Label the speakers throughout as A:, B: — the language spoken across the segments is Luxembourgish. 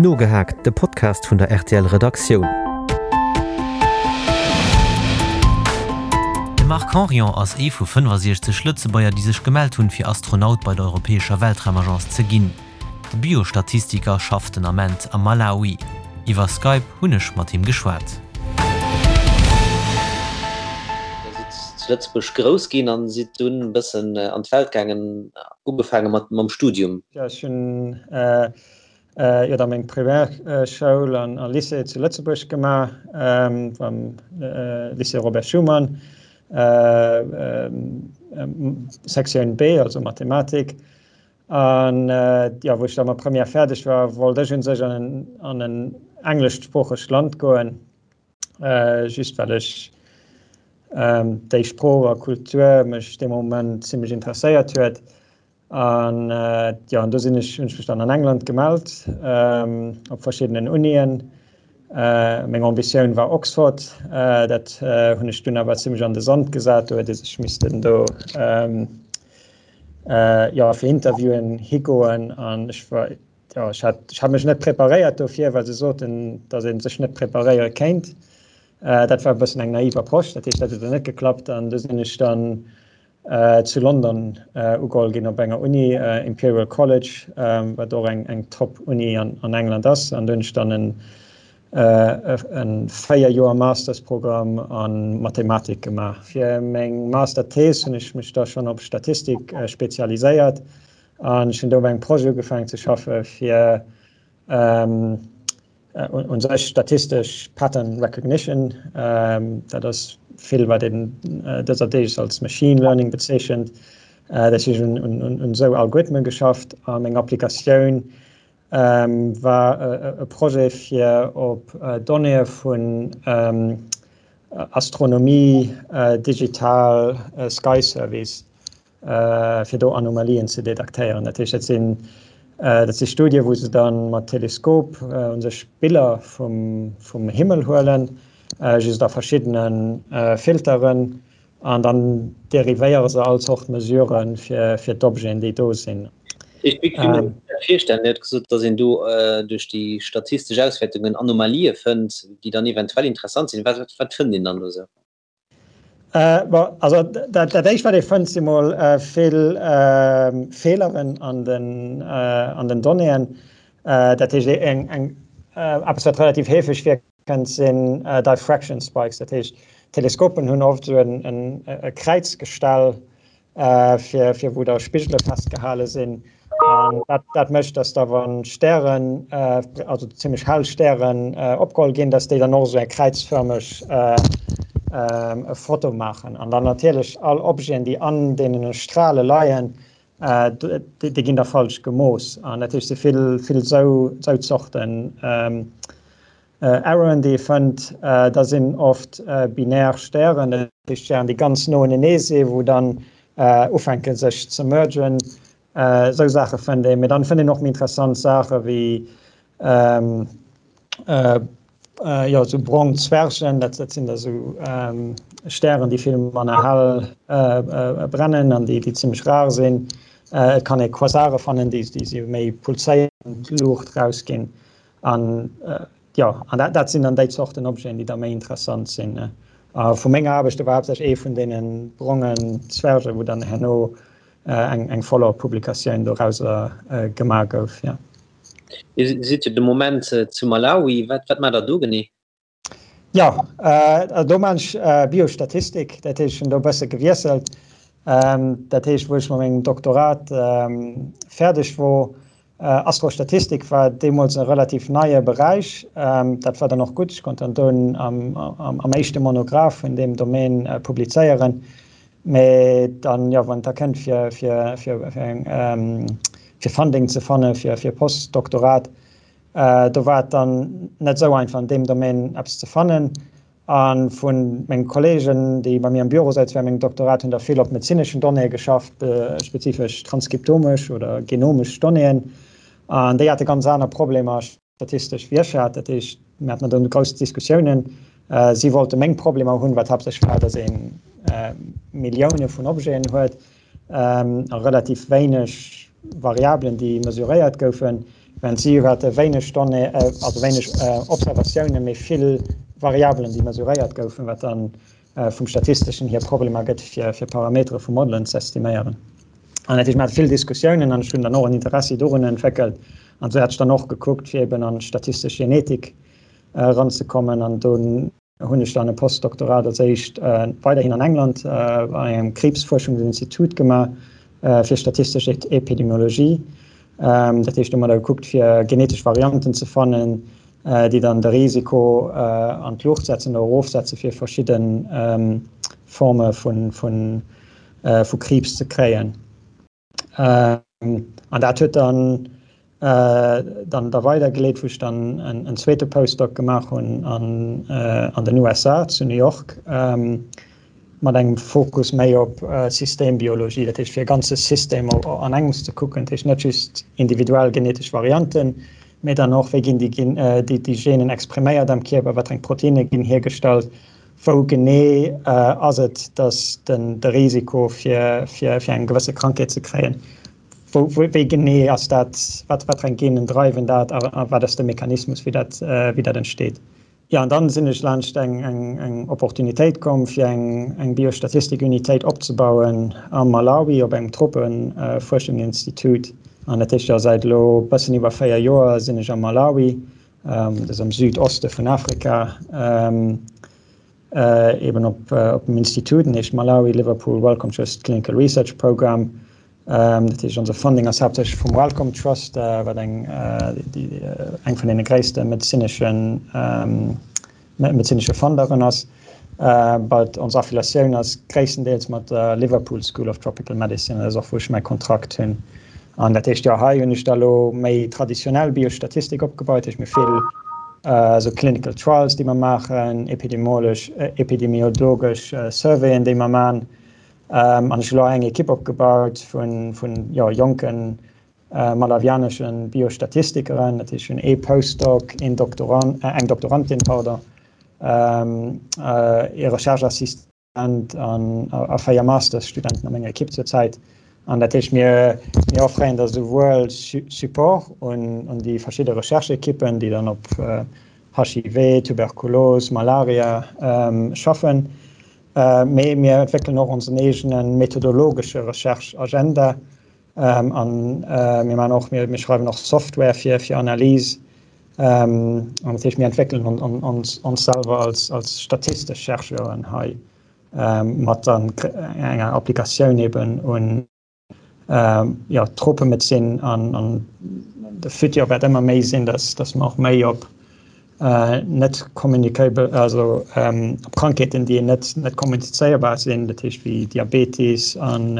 A: Nogehaakt, de Podcast vun der rtl Redaktioun. De Marc Henrion ass ee vu 65 Lëtzebuerger, déi sech gemellt hunn, fir Astronaut bei der europäescher Weltraumagence ze ginn. De Biostatistiker schafft den Ament am Malawi. Iwwer Skype hunn ech mat him geschwat.
B: Dir sidd zu Lëtzebuerg grouss ginn an sidd dunn e bëssen an d'Welt gaangen, ugefaange mat mam Studium.
C: Jo, ech hunn jo da meng Primärschoul an Lycée zu Lëtzebuerg gemaach, am Lycée Robert Schuman, Sektioun B, also Mathematik. An jo, wou ech da mat Première fäerdeg war, wollt ech un sech an an en engleschsproochegt Land goen, just well ech déi Sprooch a Kultur mech dee Moment zimmlech interesséiert huet. An jo, an do sinn ech, hunn ech mech dann an England gemellt, op verschiddenen Unien. Meng Ambitioun war Oxford, dat hunn ech dunn awer zimmlech an de Sand gesat, do huet ee sech missten do jo fir Interviewen higoen an ech war jo ech hat ech hat mech net preparéiert dofir, well se soten, datt ee sech net preparéiere kéint. Dat war e bëssen eng naiv Approche, dat heescht dat huet dann net geklappt an du sinn ech dann zu London ugeholl ginn op enger Uni, Imperial College, wat och eng eng Top-Uni an an England ass an do hunn ech dann en e 4 Joer Mastersprogramm a Mathematik gemaach. Fir meng Masterthees hunn ech mech da schonn op Statistik spezialiséiert an ech hunn do op engem Projet ugefaangen ze schaffe fir u sech statistesch Pattern Recognition. Dat ass vill wat een dëser Deeg als Machine Learning bezeechent. Dat heescht ech hunn un esou Algorithmen geschafft a meng Applikatioun war e Projet fir op Donnéeë vun Astronomie, digital Sky Surveys, fir do Anomalien ze detektéieren. Dat heescht, dat sinn dat si Studie wou se dann mat Teleskop u sech Biller vum vum Himmel huelen, just a verschiddene Filteren An dann dérivéiere se all Zort Mesurë fir d'Objeten, déi do sinn.
B: Wéi kann ee sech dat virstellen? Dir hutt gesot, datt een do duerch déi statistesch Auswäertungen Anomalië fënnt, déi dann eventuell interessant sinn. Wat fënnt een dann do esou?
C: Bon, also dat éischt, wat ee fënnt, si mol vill Feeleren an den Donnéeën. Dat heescht, eppes, wat relativ heefeg vir Kënnt sinn Diffraction Spikes, dat heescht Teleskopen hunn oft esou e Kräizgestell fir fir wou da Spigele festgehale sinn an dat dat mécht, datt da wann Stären, also zimmlech hell Stären opgeholl ginn, datt déi dann och esou eng kräizfërmeg Foto maachen an dann natierlech all Objeten, déi an deene Strale leien, déi ginn da falsch gemooss an dat heescht si vill vill esou esou Zorten Erroren déi ee fënnt. Da sinn oft binär Stären, dat heescht Stären déi ganz no unenee si wou dann ufänke sech ze mergen. Esou Saache fënnt een. Mee dann fënnt een och méi interessant Saache wéi Jo, esou brong Zwergen, dat sinn da sou Stären, déi vill manner hell brennen an déi zimmlech rar sinn. Et kann ee Quasare fannen, déi sou méi pulséierend Luucht rausginn. An jo, an dat sinn dann déi Zorten Objeten, déi da méi interessant sinn. A vu menger Aarbecht, do war haaptsächlech ee vun deene brongen Zwergen, wou dann herno eng Follow-up-Publikatioun dorauser gemaach gouf, jo.
B: Dir sidd jo de Moment zu Malawi. Wat wat maacht der do genee?
C: Jo, do maan ech Biostatistik, dat heescht ech hunn do e bësse gewiesselt. Dat heescht wou ech mat mengem Doktorat fäerdeg wor, Astrostatistik war deemools e relativ neie Beräich. Dat war dann och gutt, ech konnt dann do am éischte Monograph vun deem Domaine publizéieren. Mee dann, jo, wann et da kënnt fir fir fir eng fir Funding ze fanne fir fir Postdoktorat, do war et dann net esou einfach an deem Domaine eppes ze fannen. A vu menge Kollegen, déi bei mir am Büro souzen während mengem Doktorat, hunn der vill op medezineschen Donnéeë geschafft, spezifesch transkriptomesch oder genomesch Donnéeën, an déi hate ganz aner Problemer. Statistesch Wirtschaft, dat heescht, mir haten do grouss Diskussiounen. Si wollte meng Problemer hunn, wat haaptsächlech war, datt ee Millioune vun Objeten huet a relativ wéineg Variabelen, déi mesuréiert goufen. Während si hate wéineg Donnéeë, also wéineg Observatiounen, mee vill Variabelen, déi mesuréiert goufen, wat dann vum statisteschen hier Problemer gëtt, fir Parametere vu Modelen ze estiméieren. An dat heescht, mir hate vill Diskussiounen an ech hunn dann och en Interessi dorun entwéckelt. An esou hat ech dann och gekuckt, fir eben an d'statistesch Genetik eranzekommen. An do hunn ech dann e Postdoktorat als éischt weiderhin an England an engem Kriibsfuerschungsinstitut gemaach fir statistesch Epidemiologie. Dat heescht, do hu mer da gekuckt, fir genetesch Varianten ze fannen, déi dann de Risiko an d'Luucht setzen oder erofsetze fir verschidde Forme vu Kriibs ze kréien. An dat huet dann dann da weidergeleet, wou ech dann en zweete Postdoc gemaach hunn an an den USA zu New York mat engem Fokus méi op Systembiologie, dat heescht fir e ganze System an engems ze kucken, dat heescht net just individuell genetesch Varianten, mee dann och wéi ginn déi déi Genen expriméiert am Kierper, wat fir eng Proteinne ginn hiergestallt, Wou genee ass et, datt de Risiko fir eng gewësse Krankheet ze kréien, wéi genee ass dat, wat fir eng Genen dreiwen dat a wat ass de Mechanismus, wéi dat entsteet? Jo, an dann sinn ech laanscht eng Opportunitéit komm, fir eng Biostatistik-Unitéit opzebauen am Malawi op engem Tropefuerschungsinstitut. An dat heescht, jo, säit elo e bëssen iwwer 4 Joer sinn ech am Malawi. Dat ass am Südoste vun Afrika, eben op dem Institut, den heescht Malawi Liverpool Wellcome Trust Clinical Research Programme. Dat heescht, onse Funding ass haaptsächlech vum Wellcome Trust, wat eng eng vun deene gréisste medezineschen medezinesche Funderen ass. But ons Affiliatioun ass gréisstendeels mat der Liverpool School of Tropical Medicine, dat ass och wou ech mäi Kontrakt hunn. An dat heescht, jo, hei hunn ech da lo méi traditionell Biostatistik opgebaut, heescht mir vill esou Clinical Trials, déi mer maachen, epidemiologesch epidemiologesch Surveyen, déi mer man. An ech hu lo eng Ekipp opgebaut vun vun jo jonken malawianeschen Biostatistikeren, dat heescht hunn ee Postdoc, een Doktorand, eng Doktorandin, pardon, ee Recherche-Assistent an a 4 Mastersstudenten a menger Ekipp zur Zäit. An dat heescht, mir mir offréieren da souwuel Support un un déi verschidde Recherche-Ekippen, déi dann op HIV, Tuberkulos, Malaria schaffen, mee mir entwéckelen och onsen eegene methodologesche Recherche-Agenda, An mir maachen och, mir schreiwen och Software fir fir Analyse. An dat heescht, mir entwéckelen ons ons selwer als als statistesch Chercheuren hei mat dann enger Applikatioun eben un jo d'Tropemedezin an an de Futur wäert ëmmer méi sinn, datt datt mer och méi op net communicable, also op Krankheeten, déi net net kommunizéierbar sinn, dat heescht wéi Diabetes an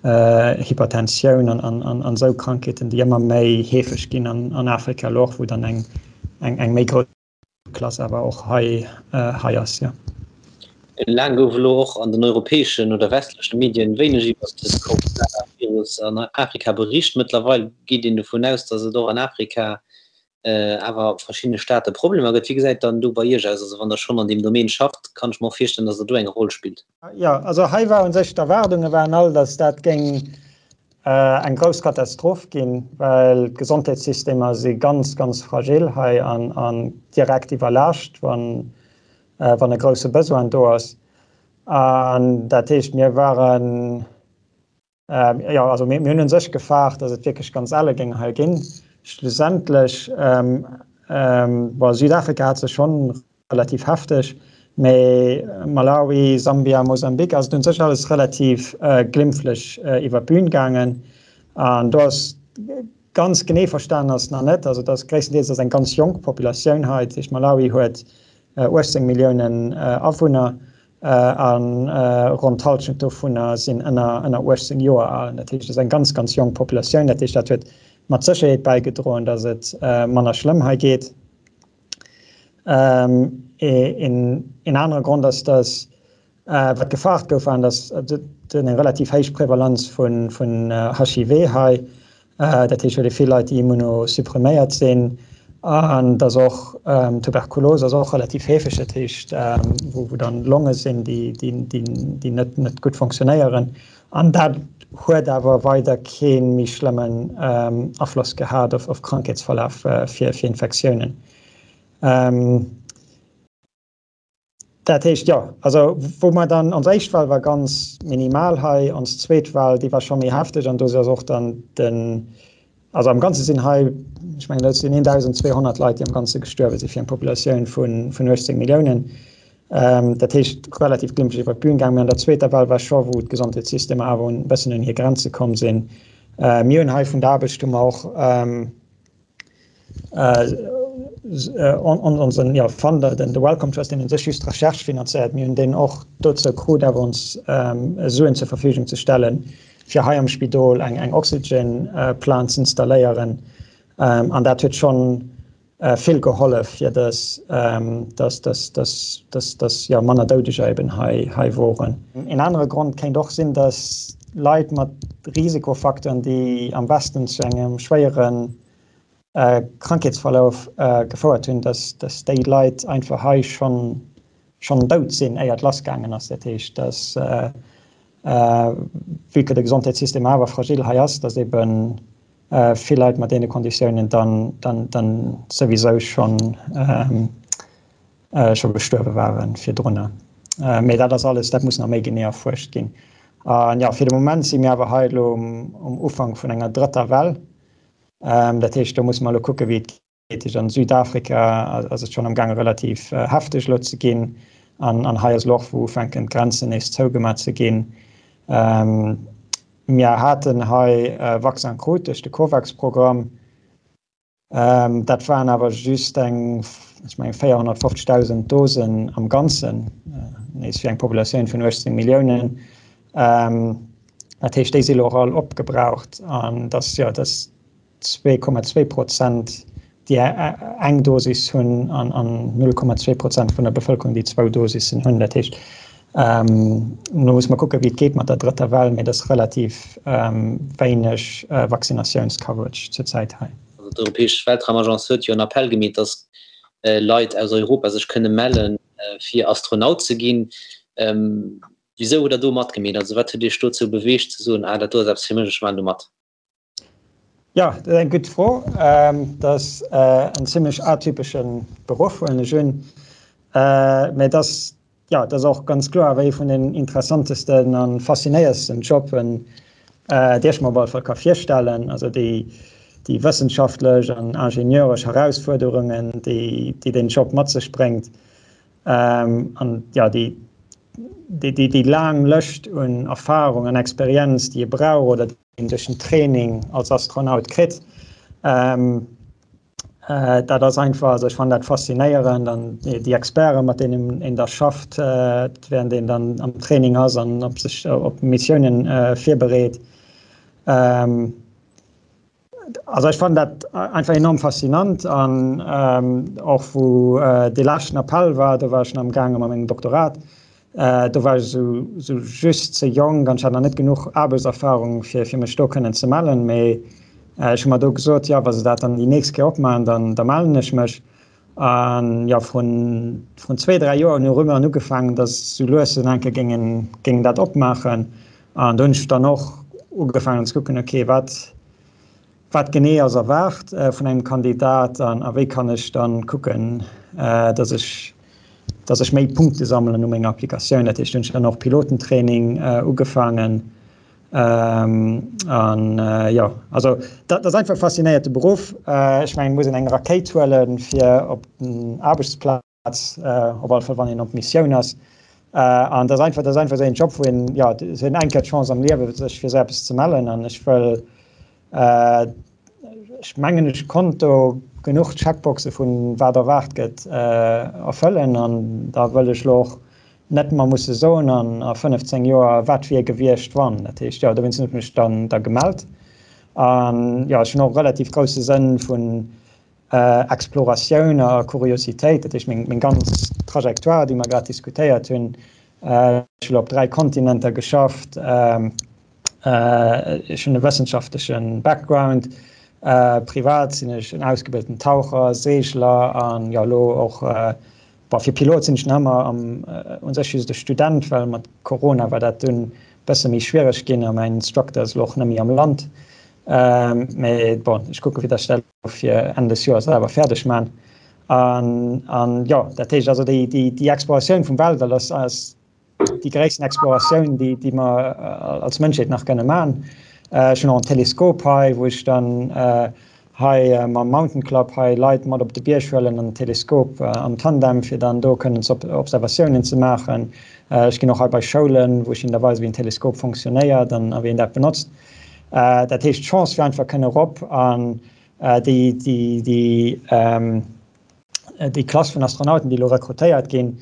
C: Hypertensioun an esou Krankheeten, déi ëmmer méi heefeg ginn an Afrika elo och, wou dann eng eng méi grouss Klass awer och hei hei ass, jo.
B: Laang gouf elo och an den europäeschen oder westleche Medien wéineg iwwer de Coronavirus an Afrika bericht. Mëttlerweil geet een dovun aus, datt et och an Afrika awer verschiddene Staate Problemer gëtt. Wéi gesäit dann do bei Iech aus? Also wann Der schonn an deem Domaine schafft, kann ech mer och virstellen, datt Der do eng Roll spillt.
C: Jo, also hei war u sech, d'Erwaardunge waren all, datt dat géing eng grouss Katastroph ginn, well d'Gesondheetssystemer si ganz, ganz fragil hei an direkt iwwerlaascht, wann e grousse Besoin do ass. An dat heescht, mir waren, Jo, also mir hunn u sech gefaart, datt et wierklech ganz elle géing hei ginn. Schlussendlech, bon, Südafrika hat se schonn relativ hefteg, mee Malawi, Sambia, Mosambik ass et u sech alles relativ glimpflech iwwer d'Bün gaangen. An do ass ganz genee verstanen ass nach net, also et ass gréisstendeels ass eng ganz jonk Populatioun hei, dat heescht Malawi huet 18 Milliounen Awunner A ronn d'Hallschent dovunner sinn ënner 18 Joer al. Dat heescht, et ass eng ganz, ganz jonk Populatioun. Dat heescht, dat huet mat Sécherheet bäigedroen, datt et manner schlëmm hei geet. Een anere Grond ass, datt wat gefaart gouf, war, datt et eng relativ héich Prevalenz vun HIV hei Dat heescht, huet ee vill Leit, déi immunosuppriméiert sinn. An dass och Tuberkulos ass och relativ heefeg, dat heescht, wou dann Longe sinn, déi net gutt funktionéieren. An dat Huet awer weider kee méi schlëmmen Afloss gehat op Krankheetsverlaf fir Infektiounen. Dat heescht, jo, also wou mer dann, ons éischt Well war ganz minimal hei, ons zweet Well, déi war scho méi hefteg an do ass och dann den, also am Ganze sinn hei, ech mengen dat sinn 1.200 Leit, déi am Ganze gestuerwe si fir eng Populatioun vun 18 Milliounen. Dat heescht relativ glimpflech iwwer d'Bün gaangen. Mee an der zweeter Well war scho, wou d'Gesondheetssystemer awer e bëssen un hir Grenze komm sinn. Mir hunn hei vun der Aarbecht hu mer och, onsen jo Funder, den The Wellcome Trust, deen u sech just d'Recherche finanzéiert, mir hunn deen och dozou krut awer ons Suen zur Verfügung ze stellen, fir hei am Spidol eng eng Oxygen Plant z'installéieren. An dat huet schonn vill gehollef, fir dass dass dass dass dass dass jo manner Doudeger eben hei hei woren. Een anere Grond kéint och sinn, dass Leit mat Risikofacteuren, déi am Westen zu engem schwéiere Krankheetsverlauf gefouert hunn, dass déi Leit einfach hei schonn dout sinn, éier et lassgaangen ass. Dat heescht, dass, vue que de Gesondheetssystem awer fragil hei ass, dass ebe vill Leit mat deene Konditiounen dann souwisou schonn scho gestuerwe ware virdrunner. Mee dat ass alles, dat muss nach méi genee erfuerscht ginn. An jo, fir de Moment si mir awer hei elo um Ufank vun enger drëtter Well. Dat heescht, do musse mer elo kucke wéi et geet. An Südafrika ass et schonn amgaange relativ hefteg elo ze ginn. An hei ass elo och, wou ufänken d'Grenzen nees zougemat ze ginn. Mir haten hei Vaccin krut duerch de Covax-Programm. Dat waren awer just eng, ech mengen, 450.000 Dosen am Ganzen, nees fir eng Populatioun vun 18 Milliounen. Dat heescht, déi si elo och all opgebraucht. An dass, jo, dass 2,2 Prozent, déi eng Dosis hunn an 0,2 Prozent vun der Bevëlkerung, déi zwou Dosissen hunn. Dat heescht, elo muss mer kucken, wéi et geet mat der drëtter Well, mee et ass relativ wéineg Vaccinatiouns-Coverage zurzäit hei.
B: Also d'Europäesch Weltraumagence huet jo en Appell gemeet, datt Leit aus Europa sech kënne mellen, fir Astronaut ze ginn. Wisou hutt Der do matgemeet? Also wat huet Iech dozou beweegt ze soen, ah dat do ass eppes fir mech, ech maachen do mat?
C: Jo, dat ass eng gutt Fro. Dat ass en zimlech atypesche Beruff, huelen ech un. Mä et ass, jo, et ass och ganz kloer awer ee vun den interessantesten a faszinéiersten Jobben, déi ech mer op alle Fall ka virstellen. Also déi, déi wëssenschaftlech an ingenieuresch Herausfuerderungen, déi, déi deen Job mat sech bréngt, an jo, déi, déi, déi laang Lëscht un Erfarung an Experienz, déi ee brauch oder een duerch den Training als Astronaut kritt. Ähm, äh, dat ass einfach, also ech fannen dat faszinéierend an déi Experten, mat deenen een da schafft, äh, während een dann am Training ass an op sech op Missiounen äh, virbereet. Ähm, also ech fannen dat einfach enorm faszinant an ähm, och wou äh, de leschten Appell war, do war ech schon am gaange mat mengem Doktorat, Do war ech esou just ze jonk an ech hat nach net genuch Aarbechtserfarung, fir fir mech do kënnen ze mellen. Mee ech hu mer do gesot, jo, wa se dat dann déi nächst Kéier opmaachen, dann da mellen ech mech. An jo, vrun vrun zwee, dräi Joer hunn Rumeuren ugefaangen, datt sou lues en enke géingen géingen dat opmaachen. An do hunn ech dann och ugefaangen ze kucken, okay, wat Wat genee ass erwaart vun engem Kandidat an a wéi kann ech dann kucken, dass ech dass ech méi Punkte sammelen u menger Applikatioun. Dat heescht, hunn ech dann och Pilotentraining ugefaangen an jo, also dat ass einfach e faszinéierte Beruff. Ech mengen, et muss een eng Rakéit huelen, fir op den Aarbechtsplaz op alle Fall wann een op Missioun ass. An dat ass einfach, dat ass einfach esou een Job, wou een, jo, et huet een eng Kéier d'Chance am Liewe sech fir esou eppes ze mellen. An ech wëll, ech mengen ech konnt do genuch Checkboxe vun wat erwaart gëtt erfëllen. An da wëll ech elo och net mer musse soen an a 15 Joer wat wier gewiescht wann. Dat heescht, jo, dowéinst hunn ech mech dann da gemellt. An jo, ech hunn och e relativ grousse Sënn vun Exploratioun a Kuriositéit, dat heescht meng ganz Trajectoire, déi mer grad diskutéiert hunn. Ech hunn op 3 Kontinenter geschafft, ech hunn e wëssenschaftleche Background, privat sinn ech en ausgebilten Taucher, Seegler an jo elo och, bon fir Pilot sinn ech nach ëmmer am u sech just e Student, well mat Corona war dat dunn. bësse méi schwiereg ginn a mäin Instructor ass elo och net méi am Land. Mee bon, ech kucke fir datt ech dat elo fir Enn des Joers awer fäerdeg man. An, an jo, dat heescht also déi, déi, déi Exploratioun vum Weltall ass, ass déi gréissten Exploratioun, déi, déi mer als Mënschheet nach kënne man. Ech hunn och en Teleskop hei, wou ech dann hei mam Mountain Club hei Leit mat op de Bierg huelen an den Teleskop am Tandem, fir dann do kënnen ze Observatiounen ze maachen. Ech ginn och hei bei Schoulen, wou ech hinnen da weisen, wéi en Teleskop fonctionnéiert an wéi een dat benotzt. Dat heescht, d'Chance fir einfach kënne erop an déi, déi, déi, déi Klass vun Astronauten, déi elo rekrutéiert ginn,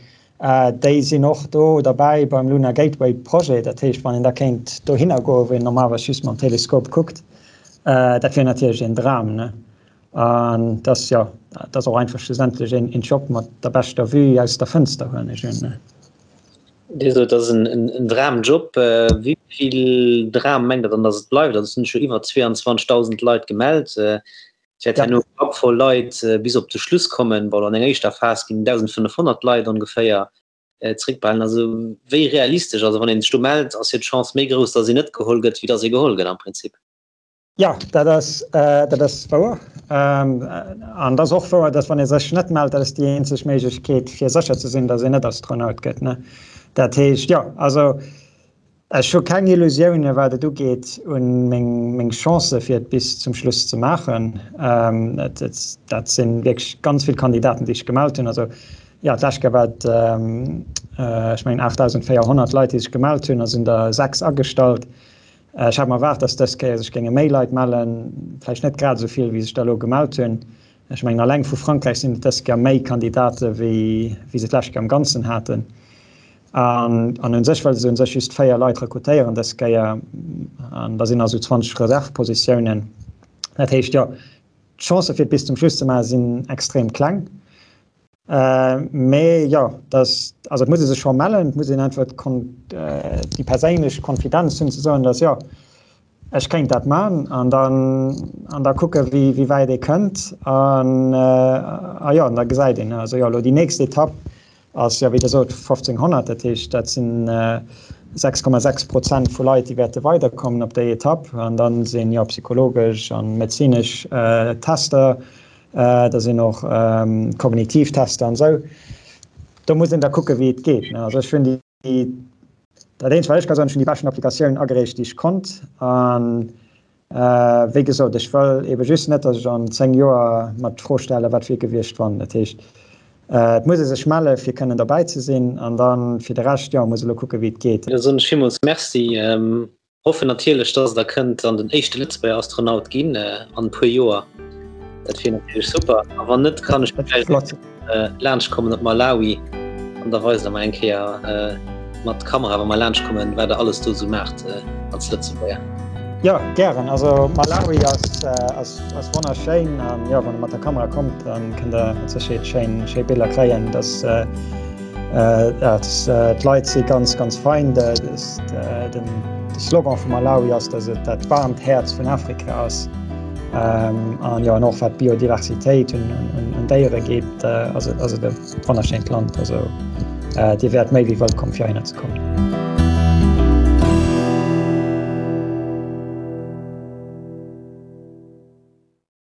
C: déi sinn och do derbäi beim Lunar Gateway Projet. Dat heescht, wann een da kéint dohinner goen, wou een normalerweis just mam Teleskop kuckt, dat wier natierlech een Dram, ne? An dat ass, jo, dat ass och einfach schlussendlech een Job mat der beschter Vue aus der Fënster, huelen ech un, ne?
B: Dir sot, et ass en Dramjob. Wéi vill Dram mengt Der dann, datt et bleift? Also et sinn scho iwwer 22.000 Leit gemellt. Et wäert herno e Grapp voll Leit bis op de Schluss kommen. Bon, an enger éischter Phas ginn 1.500 Leit ongeféier zeréckbehalen. Also wéi realistesch, also wann ee sech do mellt, ass jo d'Chance méi grouss, datt een net geholl gëtt, wéi datt ee geholl gëtt am Prinzip.
C: Jo, dat ass, dat ass wouer. An et ass och wouer, datt wann ee sech net mellt, dat ass déi eenzeg Méiglechkeet, fir sécher ze sinn, datt een net Astronaut gëtt. Dat heescht, jo, also Ech hu keng Illusioune wat et ugeet un meng Chancë fir et bis zum Schluss ze maachen. Dat si wierklech ganz vill Kandidaten, déi sech gemellt hunn. Also jo, d'lescht Kéier war et ech mengen 8.400 Leit, déi sech gemellt hunn, a sinn der 6 agestallt. Ech hat mer erwaart, datt dës Kéier sech géinge méi Leit mellen, vläicht net grad esou vill, wéi sech der elo gemellt hunn. Ech mengen alleng vu Frankräich sinn et dës Kéier méi Kandidate wéi se d'lescht Kéier am Ganzen haten. An an u sech wëlle se u sech just 4 Leit rekrutéieren dës Kéier. An da sinn also 20 Reservpositiounen. Dat heescht, jo, d'Chancë fir et bis zum Schluss ze maachen, sinn extrem kleng. Mee jo, dass, also et muss ee sech scho mellen, et muss een einfach déi perséinlech Konfidenz hunn ze soen, dass jo, Ech kéint dat man an dann an da kucke wéi wéi wäit ee kënnt an a jo an da gesäit een. Also jo elo déi nächst Etapp ass jo wéi Der sot 1500, dat heescht dat sinn 6,6 Prozent vu Leit déi wäerte weiderkommen op déi Etapp an dann sinn jo psychologesch an medezinesch Tester, da sinn och kognitiv Tester an esou. Do muss een da kucke wéi et geet. Also ech hunn déi Dat eenzegt wat ech ka soen, ech hunn déi beschten Applikatioun agereecht déi ech konnt an wéi gesot, ech wëll ebe just net, datt ech an 10 Joer mer d'Fro stelle wat wier gewiescht wann. Dat heescht, et muss ee sech melle fir kënnen derbäi ze sinn an da fir de Rescht, jo, muss elo kucke wéi et geet.
B: Da soen ech villmools Merci. Hoffen natierlech dass der kënnt dann den éischte Lëtzebuerger Astronaut ginn an e puer Joer. Dat wier natierlech super. A wann net, kann ech vläicht laanscht kommen op Malawi an da weist der mer eng Kéier mat Kamera, wa mer laanscht kommen, wat der alles do esou maacht als Lëtzebuerger.
C: Jo, gären. Also Malawi ass ass wonnerschéin an jo, wann der mat der Kamera kommt, dann kënnt der mat Sécherheet schéin schéi Biller kréien. Dass D'Leit si ganz ganz fein. De Slogan vu Malawi ass, datt et dat waarmt Häerz vun Afrika ass. An jo an och wat d'Biodiversitéit un Déiere geet, ass et ass et e wonnerschéint Land. Also Dir wäert méi wéi wëllkomm fir heihinner ze kommen.